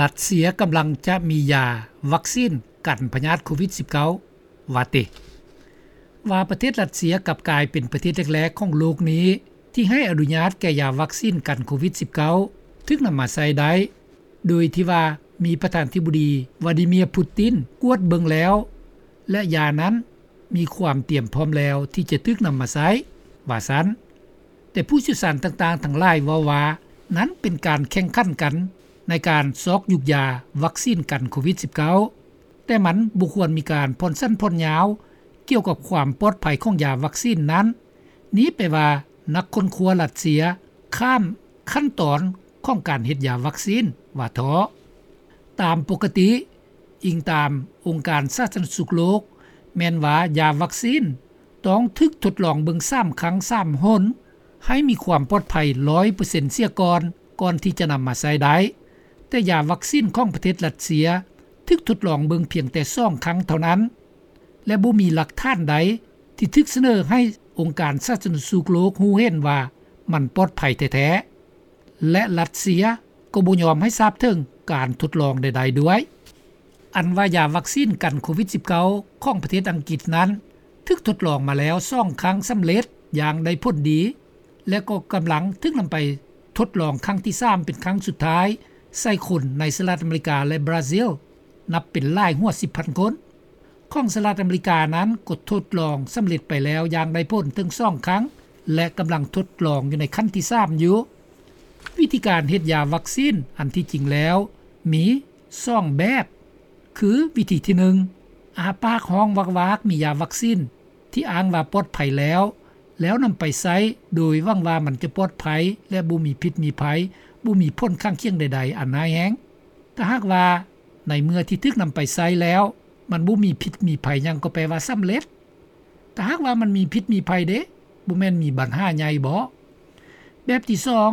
ລັດເຊຍກຳລັງຈະມີຢາວັກຊີນກັນພະຍາດໂຄວິດ-19 ວ່າຕິ. ວ່າປະເທດລັດເຊຍກັບກາຍເປັນປະເທດແລກໆຂອງໂລກນີ້ ທີ່ໃຫ້ອະນຸຍາດແກ່ຢາວັກຊີນກັນໂຄວິດ-19 ຖືກນຳມາໃຊ້ໄດ້ ໂດຍທີ່ວ່າມີປະທານາທິບໍດີ ວາດີເມຍ ປູຕິນ ກວດເບິ່ງແລ້ວ ແລະ ຢານັ້ນມີຄວາມຕຽມພ້ອມແລ້ວທີ່ຈະຖືກນຳມາໃຊ້ ວ່າຊັ້ນ. ແຕ່ຜູ້ຊ່ຽວຊານຕ່າງໆທັງຫຼາຍເວົ້າວ່າ ນັ້ນເປັນການແຂ່ງຂັນກັນໃນການຊອກຢຸກຢາວັກຊີນກັນໂຄວິດ-19 ແຕ່ມັນບໍ່ຄວນມີການຜ່ອນສັ້ນຜ່ອນຍາວກ່ຽວກັບຄວາມປອດໄພຂອງຢາວັກຊີນນັ້ນ. ນີ້ແປວ່ານັກຄົ້ນຄວ້າລັດເຊຍຂ້າມຂັ້ນຕອນຂອງການເຮັດຢາວັກຊີນວ່າເທາະ. ຕາມປົກກະຕິ, ອີງຕາມອົງການສາທາລະນະສຸກໂລກ, ແມ່ນວ່າຢາວັກຊີນຕ້ອງຖືກທົດລອງເບິ່ງສາມຄັ້ງສາມຫົນ ໃຫ້ມີຄວາມປອດໄພຮ້ອຍເປີເຊັນເສຍກ່ອນ, ກ່ອນທີ່ຈະນຳມາໃຊ້ໄດ້. ແຕ່ຢາວັກຊີນຂອງປະເທດຣັດເຊຍຖືກທົດລອງເບິ່ງພຽງແຕ່ສອງຄັ້ງເທົ່ານັ້ນ ແລະ ບໍ່ມີຫຼັກຖານໃດທີ່ຖືກສະເໜີໃຫ້ອົງການສາທາລະນະສຸກໂລກຮູ້ເຫັນວ່າມັນປອດໄພແທ້ໆ ແລະ ຣັດເຊຍກໍບໍ່ຍອມໃຫ້ຊາບເຖິງການທົດລອງໃດໆດ້ວຍ. ອັນວ່າຢາວັກຊີນກັນໂຄວິດ-19 ຂອງປະເທດອັງກິດນັ້ນ ຖືກທົດລອງມາແລ້ວສອງຄັ້ງສຳເລັດຢ່າງໄດ້ຜົນດີ ແລະ ກໍກຳລັງຖືກນຳໄປທົດລອງຄັ້ງທີສາມເປັນຄັ້ງສຸດທ້າຍໃສ່ຄົນໃນສະຫະລັດອາເມລິກາ ແລະ ບຣາຊິລ ນັບເປັນຫຼາຍຫົວສິບພັນຄົນ. ຂອງສະຫະລັດອາເມລິການັ້ນກໍທົດລອງສຳເລັດໄປແລ້ວຢ່າງໄດ້ຜົນເຖິງສອງຄັ້ງ ແລະ ກຳລັງທົດລອງຢູ່ໃນຂັ້ນທີສາມຢູ່. ວິທີການເຮັດຢາວັກຊີນອັນທີ່ຈິງແລ້ວມີສອງແບບ ຄືວິທີທີໜຶ່ງ ອ້າປາກຮ້ອງວາກໆ ມີຢາວັກຊີນທີ່ອ້າງວ່າປອດໄພແລ້ວ ແລ້ວນຳໄປໃຊ້ໂດຍຫວັງວ່າມັນຈະປອດໄພ ແລະ ບໍ່ມີພິດມີໄພ, ບໍ່ມີຜົນຂ້າງຄຽງໃດໆອັນຮ້າຍແຮງ. ຖ້າຫາກວ່າໃນເມື່ອທີ່ຖືກນຳໄປໃຊ້ແລ້ວ ມັນບໍ່ມີພິດມີໄພຫຍັງ ກໍແປວ່າສຳເລັດ. ຖ້າຫາກວ່າມັນມີພິດມີໄພເດ? ບໍ່ແມ່ນມີບັນຫາໃຫຍ່ບໍ? ແບບທີສອງ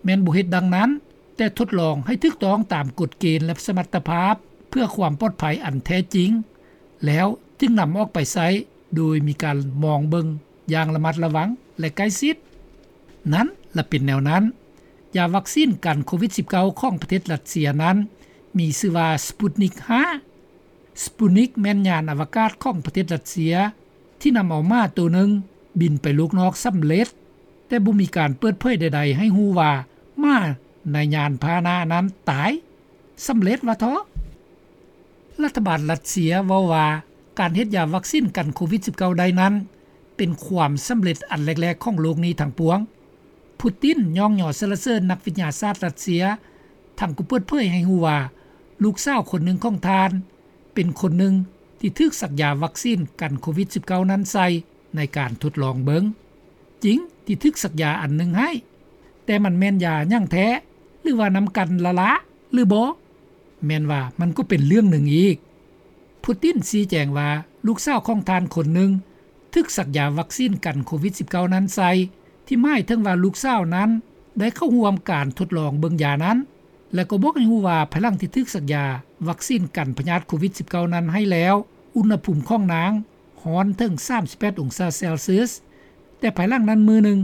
ແມ່ນບໍ່ເຮັດດັ່ງນັ້ນ, ແຕ່ທົດລອງໃຫ້ຖືກຕ້ອງຕາມກົດເກນ ແລະ ສະມັດຕະພາບ ເພື່ອຄວາມປອດໄພອັນແທ້ຈິງ ແລ້ວຈຶ່ງນຳອອກໄປໃຊ້ ໂດຍມີການມອງເບິ່ງຢ່າງລະມັດລະວັງ ແລະ ໃກ້ຊິດ. ນັ້ນລະເປັນແນວນັ້ນ. ຢາວັກຊີນກັນໂຄວິດ-19 ຂອງປະເທດຣັດເຊຍນັ້ນ ມີຊື່ວ່າ ສະປຸດນິກຫ້າ. ສະປຸດນິກແມ່ນຍານອະວະກາດຂອງປະເທດຣັດເຊຍ ທີ່ນຳເອົາໝາໂຕໜຶ່ງບິນໄປໂລກນອກສຳເລັດ, ແຕ່ບໍ່ມີການເປີດເຜີຍໃດໆໃຫ້ຮູ້ວ່າໝາໃນຍານພາຫະນະນັ້ນຕາຍສຳເລັດວ່າເທາະ. ລັດຖະບານຣັດເຊຍເວົ້າວ່າ ການເຮັດຢາວັກຊີນກັນໂຄວິດ-19 ໄດ້ນັ້ນ ເປັນຄວາມສຳເລັດອັນແລກໆຂອງໂລກນີ້ທັງປວງ. ປູຕິນຍ້ອງຍໍສັນລະເສີນນັກວິທະຍາສາດຣັດເຊຍ, ທັງກໍເປີດເຜີຍໃຫ້ຮູ້ວ່າ ລູກສາວຄົນໜຶ່ງຂອງທ່ານ ເປັນຄົນໜຶ່ງທີ່ຖືກສັກຢາວັກຊີນກັນໂຄວິດ-19 ນັ້ນໃສ່ໃນການທົດລອງເບິ່ງ. ຈິງທີ່ຖືກສັກຢາອັນໜຶ່ງໃຫ້, ແຕ່ມັນແມ່ນຢາຫຍັງແທ້ ຫຼືວ່ານຳກັນລະລະ ຫຼືບໍ່ ແມ່ນວ່າມັນກໍເປັນເລື່ອງໜຶ່ງອີກ. ປູຕິນຊີ້ແຈງວ່າ ລູກສາວຂອງທ່ານຄົນໜຶ່ງຖືກສັກຢາວັກຊີນກັນໂຄວິດ-19 ນັ້ນໃສ່, ທີ່ໝາຍເຖິງວ່າລູກສາວນັ້ນໄດ້ເຂົ້າຮ່ວມການທົດລອງເບິ່ງຢານັ້ນ ແລະ ກໍບອກໃຫ້ຮູ້ວ່າ ພາຍຫຼັງທີ່ຖືກສັກຢາວັກຊີນກັນພະຍາດໂຄວິດ-19 ນັ້ນໃຫ້ແລ້ວ, ອຸນຫະພູມຂອງນາງຮ້ອນເຖິງສາມສິບແປດອົງສາເຊລຊຽສ, ແຕ່ພາຍຫຼັງນັ້ນມື້ໜຶ່ງ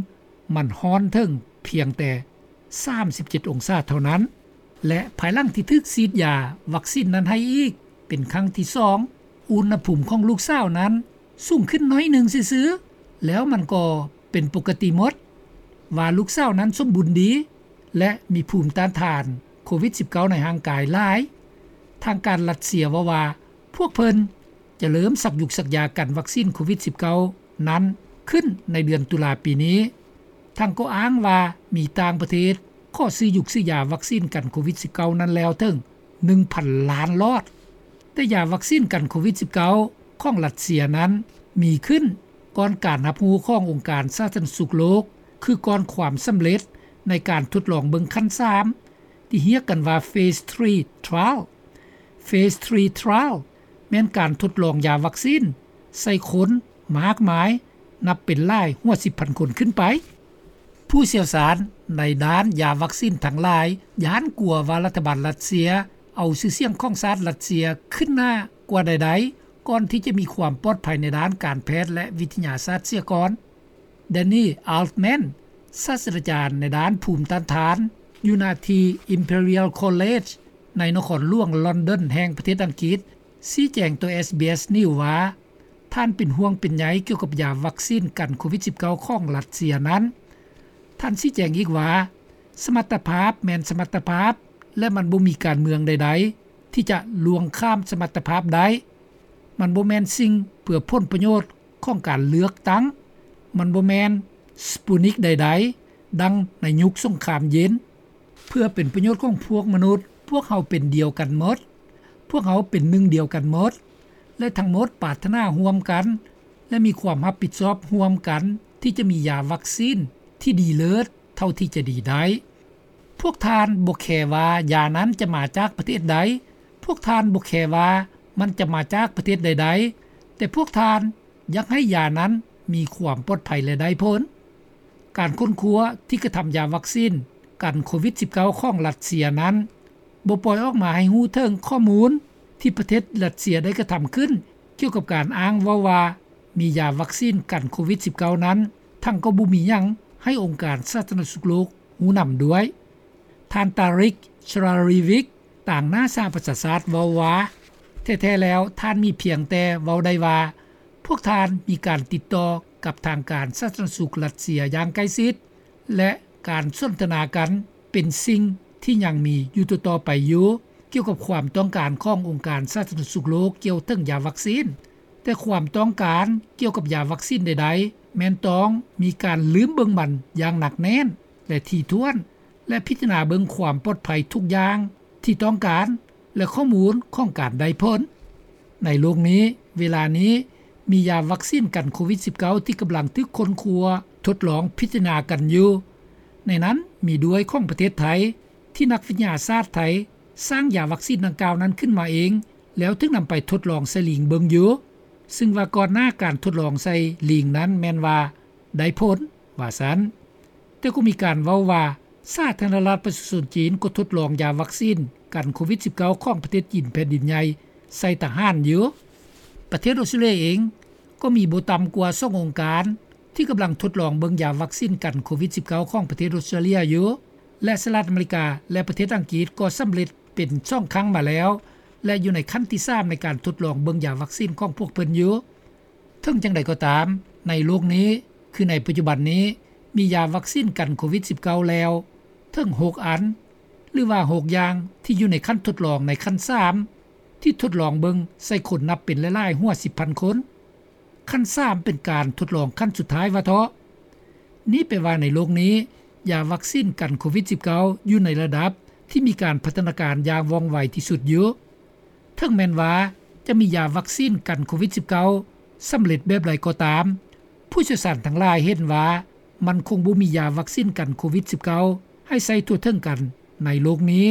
ມັນຮ້ອນເຖິງພຽງແຕ່ສາມສິບເຈັດອົງສາເທົ່ານັ້ນ. ແລະ ພາຍຫຼັງທີ່ຖືກສີດຢາວັກຊີນນັ້ນໃຫ້ອີກເປັນຄັ້ງທີສອງ, ອຸນຫະພູມຂອງລູກສາວນັ້ນສູງຂຶ້ນໜ້ອຍໜຶ່ງຊື່ໆ, ແລ້ວມັນກໍເປັນປົກກະຕິໝົດ, ວ່າລູກສາວນັ້ນສົມບູນດີ ແລະ ມີພູມຕ້ານທານໂຄວິດ-19 ໃນຮ່າງກາຍຫຼາຍ. ທາງການຣັດເຊຍເວົ້າວ່າ ພວກເພິ່ນຈະເລີ່ມສັກຢຸກສັກຢາກັນວັກຊີນໂຄວິດ-19 ນັ້ນຂຶ້ນໃນເດືອນຕຸລາປີນີ້. ທັງກໍອ້າງວ່າມີຕ່າງປະເທດຂໍຊື້ຢຸກຊື້ຢາວັກຊີນກັນໂຄວິດ-19 ນັ້ນແລ້ວເຖິງໜຶ່ງພັນລ້ານຫຼອດ. ແຕ່ຢາວັກຊີນກັນໂຄວິດ-19 ຂອງຣັດເຊຍນັ້ນມີຂຶ້ນກ່ອນການຮັບຮູ້ຂອງອົງການສາທາລະນະສຸກໂລກ, ຄືກ່ອນຄວາມສຳເລັດໃນການທົດລອງເບິ່ງຂັ້ນສາມ ທີ່ຮຽກກັນວ່າ Phase three trial. Phase three trial ແມ່ນການທົດລອງຢາວັກຊີນໃສ່ຄົນມາກມາຍ ນັບເປັນຫຼາຍຫົວສິບພັນຄົນຂຶ້ນໄປ. ຜູ້ຊ່ຽວຊານໃນດ້ານຢາວັກຊີນທັງຫຼາຍຢ້ານກົວວ່າລັດຖະບານຣັດເຊຍເອົາຊື່ສຽງຂອງຊາດຣັດເຊຍຂຶ້ນໜ້າກວ່າໃດໆ ກ່ອນທີ່ຈະມີຄວາມປອດໄພໃນດ້ານການແພດ ແລະ ວິທະຍາສາດເສຍກ່ອນ. ແດນນີ ອາລແມນ ສາດສະດາຈານໃນດ້ານພູມຕ້ານທານຢູ່ນະທີ່ Imperial College ໃນນະຄອນຫຼວງລອນດອນແຫ່ງປະເທດອັງກິດ ຊີ້ແຈງຕໍ່ ເອສບີເອສ News ວ່າ ທ່ານເປັນຫ່ວງເປັນໃຍກ່ຽວກັບຢາວັກຊີນກັນໂຄວິດ-19 ຂອງຣັດເຊຍນັ້ນ. ທ່ານຊີ້ແຈງອີກວ່າ ສະມັດຕະພາບແມ່ນສະມັດຕະພາບ ແລະ ມັນບໍ່ມີການເມືອງໃດໆ ທີ່ຈະລ່ວງຂ້າມສະມັດຕະພາບໄດ້. ມັນບໍ່ແມ່ນສິ່ງເພື່ອຜົນປະໂຫຍດຂອງການເລືອກຕັ້ງ. ມັນບໍ່ແມ່ນ Sputnik ໃດໆ ດັ່ງໃນຍຸກສົງຄາມເຢັນ. ເພື່ອເປັນປະໂຫຍດຂອງພວກມະນຸດ, ພວກເຮົາເປັນດຽວກັນໝົດ. ພວກເຮົາເປັນໜຶ່ງດຽວກັນໝົດ ແລະ ທັງໝົດປາດຖະໜາຮ່ວມກັນ ແລະ ມີຄວາມຮັບຜິດຊອບຮ່ວມກັນ ທີ່ຈະມີຢາວັກຊີນທີ່ດີເລີດເທົ່າທີ່ຈະດີໄດ້. ພວກທ່ານບໍ່ແຄວ່າຢານັ້ນຈະມາຈາກປະເທດໃດ, ພວກທ່ານບໍ່ແຄວ່າມັນຈະມາຈາກປະເທດໃດໆ, ແຕ່ພວກທ່ານຢາກໃຫ້ຢານັ້ນມີຄວາມປອດໄພ ແລະ ໄດ້ຜົນ. ການຄົ້ນຄວ້າທີ່ກະທຳຢາວັກຊີນກັນໂຄວິດ-19 ຂອງຣັດເຊຍນັ້ນ ບໍ່ປ່ອຍອອກມາໃຫ້ຮູ້ເຖິງຂໍ້ມູນທີ່ປະເທດຣັດເຊຍໄດ້ກະທຳຂຶ້ນ ກ່ຽວກັບການອ້າງເວົ້າວ່າ ມີຢາວັກຊີນກັນໂຄວິດ-19 ນັ້ນ, ທັງກໍບໍ່ມີຫຍັງໃຫ້ອົງການສາທາລະນະສຸກໂລກຮູ້ນຳດ້ວຍ. ທ່ານ Tarik Jasarevic ຕາງໜ້າສະຫະປະຊາຊາດເວົ້າວ່າ ແທ້ໆແລ້ວທ່ານມີພຽງແຕ່ເວົ້າໄດ້ວ່າ ພວກທ່ານມີການຕິດຕໍ່ກັບທາງການສາທາລະນະສຸກຣັດເຊຍຢ່າງໃກ້ຊິດ ແລະ ການສົນທະນາກັນເປັນສິ່ງທີ່ຍັງມີຢູ່ຕໍ່ໆໄປຢູ່ ກ່ຽວກັບຄວາມຕ້ອງການຂອງອົງການສາທາລະນະສຸກໂລກກ່ຽວເຖິງຢາວັກຊີນ. ແຕ່ຄວາມຕ້ອງການກ່ຽວກັບຢາວັກຊີນໃດໆ ແມ່ນຕ້ອງມີການລືມເບິ່ງມັນຢ່າງໜັກແໜ້ນ ແລະ ຖີ່ຖ້ວນ ແລະ ພິຈາລະນາເບິ່ງຄວາມປອດໄພທຸກຢ່າງທີ່ຕ້ອງການ ແລະ ຂໍ້ມູນຂອງການໄດ້ຜົນ. ໃນໂລກນີ້, ເວລານີ້ ມີຢາວັກຊີນກັນໂຄວິດ-19 ທີ່ກຳລັງຖືກຄົ້ນຄວ້າ, ທົດລອງ, ພິຈາລະນາກັນຢູ່. ໃນນັ້ນມີດ້ວຍຂອງປະເທດໄທ ທີ່ນັກວິທະຍາສາດໄທສ້າງຢາວັກຊີນດັ່ງກ່າວນັ້ນຂຶ້ນມາເອງ ແລ້ວຖືກນຳໄປທົດລອງໃສ່ລີງເບິ່ງຢູ່, ຊຶ່ງວ່າກ່ອນໜ້າການທົດລອງໃສ່ລີງນັ້ນແມ່ນວ່າໄດ້ຜົນ, ວ່າຊັ້ນ. ແຕ່ກໍມີການເວົ້າວ່າ ສາທາລະນະລັດປະຊາຊົນຈີນກໍທົດລອງຢາວັກຊີນກັນໂຄວິດ-19 ຂອງປະເທດຈີນແຜ່ນດິນໃຫຍ່ໃສ່ທະຫານຢູ່. ປະເທດອົດສະຕຣາເລຍເອງກໍມີບໍ່ຕ່ຳກວ່າສອງອົງການ ທີ່ກຳລັງທົດລອງເບິ່ງຢາວັກຊີນກັນໂຄວິດ-19 ຂອງປະເທດອົດສະຕຣາເລຍຢູ່ ແລະ ສະຫະລັດອາເມລິກາ ແລະ ປະເທດອັງກິດກໍສຳເລັດເປັນສອງຄັ້ງມາແລ້ວ ແລະ ຢູ່ໃນຂັ້ນທີສາມໃນການທົດລອງເບິ່ງຢາວັກຊີນຂອງພວກເພິ່ນຢູ່. ເຖິງຈັ່ງໃດກໍຕາມ, ໃນໂລກນີ້, ຄືໃນປັດຈຸບັນນີ້, ມີຢາວັກຊີນກັນໂຄວິດ-19 ແລ້ວເຖິງຫົກອັນ ຫຼືວ່າຫົກຢ່າງ ທີ່ຢູ່ໃນຂັ້ນທົດລອງໃນຂັ້ນສາມ ທີ່ທົດລອງເບິ່ງໃສ່ຄົນນັບເປັນຫຼາຍໆຫົວສິບພັນຄົນ. ຂັ້ນສາມເປັນການທົດລອງຂັ້ນສຸດທ້າຍວ່າເທາະ. ນີ້ແປວ່າໃນໂລກນີ້ ຢາວັກຊີນກັນໂຄວິດ-19 ຢູ່ໃນລະດັບທີ່ມີການພັດທະນາການຢ່າງວ່ອງໄວທີ່ສຸດຢູ່. ເຖິງແມ່ນວ່າຈະມີຢາວັກຊີນກັນໂຄວິດ-19 ສຳເລັດແບບໃດກໍຕາມ, ຜູ້ຊ່ຽວຊານທັງຫຼາຍເຫັນວ່າມັນຄົງບໍ່ມີຢາວັກຊີນກັນໂຄວິດ-19 ໃຫ້ໃຊ້ທົ່ວເຖິງກັນໃນໂລກນີ້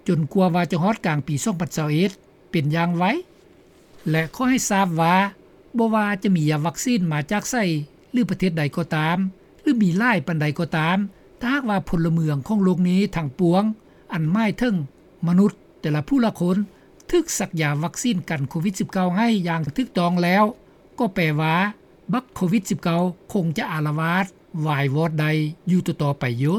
ຈົນກວ່າວ່າຈະຮອດກາງປີສອງພັນຊາວເອັດ ເປັນຢ່າງໄວ. ແລະ ຂໍໃຫ້ຊາບວ່າ ບໍ່ວ່າຈະມີຢາວັກຊີນມາຈາກໃສ ຫຼື ປະເທດໃດກໍຕາມ ຫຼື ມີຫຼາຍປານໃດກໍຕາມ, ຖ້າຫາກວ່າພົນລະເມືອງຂອງໂລກນີ້ທັງປວງ, ອັນໝາຍເຖິງມະນຸດແຕ່ລະຜູ້ລະຄົນ ຖືກສັກຢາວັກຊີນກັນໂຄວິດ-19 ໃຫ້ຢ່າງຖືກຕ້ອງແລ້ວ, ກໍແປວ່າບັກໂຄວິດ-19 ຄົງຈະອາລະວາດວາຍວອດໄດ້ຢູ່ຕໍ່ໆໄປຢູ່.